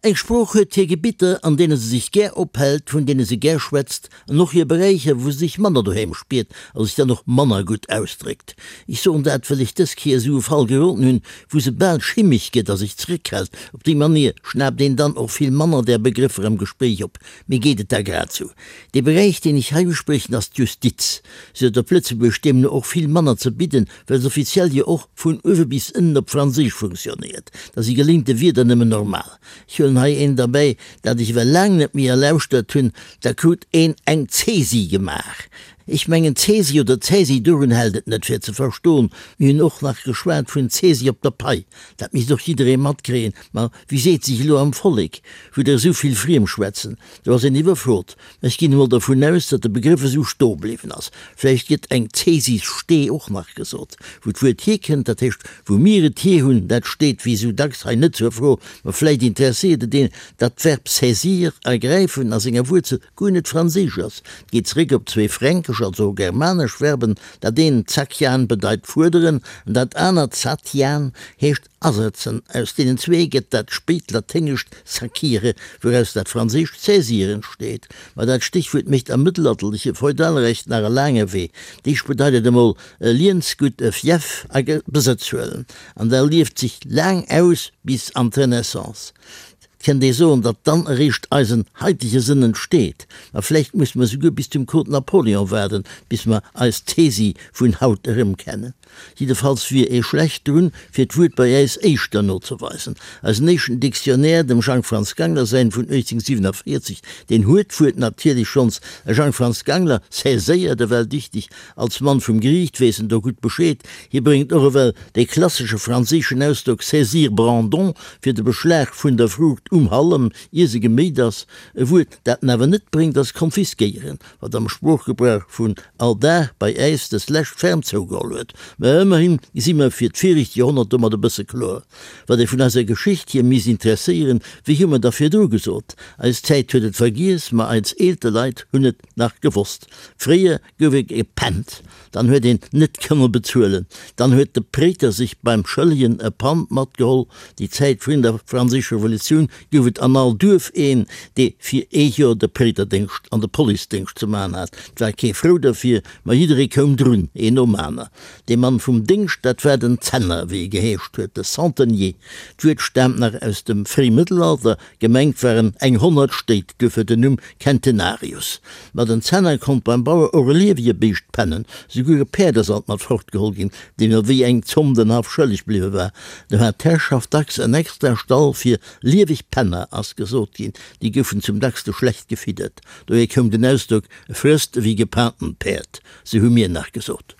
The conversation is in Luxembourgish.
Eng Sprooch huet hir Gebitter, an deene se sech gär ophält, vun deene se gär schwätzt, an och hir Beräicher, wou se sech manner doheem spiert a sech dann och manner gutt ausdréckt. Ech soen dat, well ech dës Kéier esou e Fall geroden hunn, wou se bal schimmeg gëtt a sech zeréckhält. Op déi Manier schnaapt een dann och vill manner där Begrëffer am Gespréich op. Mir geet et da grad sou. Dee Beräich, deen ech hei uspriechen, ass d'Justiz. Se huet op Lëtzebuergesch deemno och vill manner ze bidden, well se offiziell jo och vun uewe bis ënnen op Franséisch funktionéiert. Da si geléinte Wierder nëmmen normal. Ech huelen hei eent erbäi, dat ech ewell laang net méi erlauschtert hunn, Da krut een eng Zäsi gemaach. Ech mengen, Zäsi oder Zäsi, dorun hält et net, fir ze verstoen. Mir hunn och nach geschwat vun Zäsi op der Pai. Dat misst och jidderee matkréien. Ma wéi seet sech elo am Vollek, wou der esou vill friem schwätzen? Do ass een iwwerfrot. Mä ech ginn emol dervun aus, datt de Begrëff esou stoe bliwwen ass. Vläicht gëtt eng Cäsisstee och nach gesot. Wou d'Wuert hierkënnt, dat heescht wou mir et hier hunn, dat steet wéi esou dacks hei net zur Fro. Mä vläicht interesséiert et een, datt d'Verb saisir, ergräifen, a senger Wuerzel guer net franséisch ass. Et geet zeréck op zwee fränkesch, also germanesch Verben, dat eent, zakian, bedeit fuerderen, an dat anert, satian, heescht Asetzen. Aus deenen zwee gëtt dat spéit laténgescht saquire, wouraus dat franséischt saisir entsteet. Ma dat Stéchwuert mécht am mëttelalterleche Feudalrecht nach e laange Wee. Deeg bedeit et emol e Liensgutt, e Fief a Besëtz huelen. An da lieft sech laang aus bis an d'Renaissance. Et kënnt ee soen, datt dann eréischt eisen haitege Sënn entsteet. Ma vläicht musse mer souguer bis zum Code Napoléon waarden, bis mer eis Tesi vun haut erëmkennen. Jiddefalls wier ee schlecht drun, fir d'Wuert bei äis éischter nozeweisen. Eisen éischten Dictionnaire, dem Jang Franz Gangler säin vun 1847, deen huet d'Wuert natierlech schonns. E Jang Franz Gangler saiséiert ewell dichteg, als Mann vum Geriicht weess en do gutt Bescheed. Hie bréngt och ewell dee klassesche franséischen Ausdrock saisir Brandon fir de Beschlag vun der Fruucht um Hallem, ier se geméit ass. E Wuert, dat en awer net bréngt, ass konfiskéieren. wat am Sproochgebrauch vun all Dag bei äis des lescht ferm zougeholl huet. Mä ëmmerhin si mer fir d'viregt Joerhonnert domat e bësse kloer. Wat ee vun eiser Geschicht hier misst interesséieren, wéi hu mer da virdru gesot? Eis Zäit huet et vergiess, ma eis eelte Leit hunn et nach gewosst. Fréier gouf ee gepennt, dann huet een net kënne bezuelen, dann huet de Préiter sech beim Schëllegen e Pand matgeholl. Déi Zäit vrun der Franséischer Revolutioun gouf et an all Duerf een, dee fir ee Joer de Préiterdéngscht an de Policedéngscht ze man hat. 't war kee frou derfir, ma jidderee koum drun, een nom aner. Dee Mann vum Déngscht, dat war den Zenner, wéi e geheescht huet, de Centenier. D'Wuert staamt nach aus dem Fréimëttelalter, gemengt waren eng 100 Stéit, duerfir den Numm Centenarius. Ma den Zenner konnt beim Bauer och e liewege Béischt pennen, souguer e Päerd ass alt mat fortgeholl ginn, deem ewéi eng Zomm den Haff schëlleg bliwwe war. Do hat d'Herrschaft dacks en extra Stall fir lieweg Penner, ass gesot ginn. Déi goufen zum dackste schlecht gefiddert. Dohier koum den Ausdrock, E frësst ewéi gepaantent Päerd, sou hu mir nach gesot.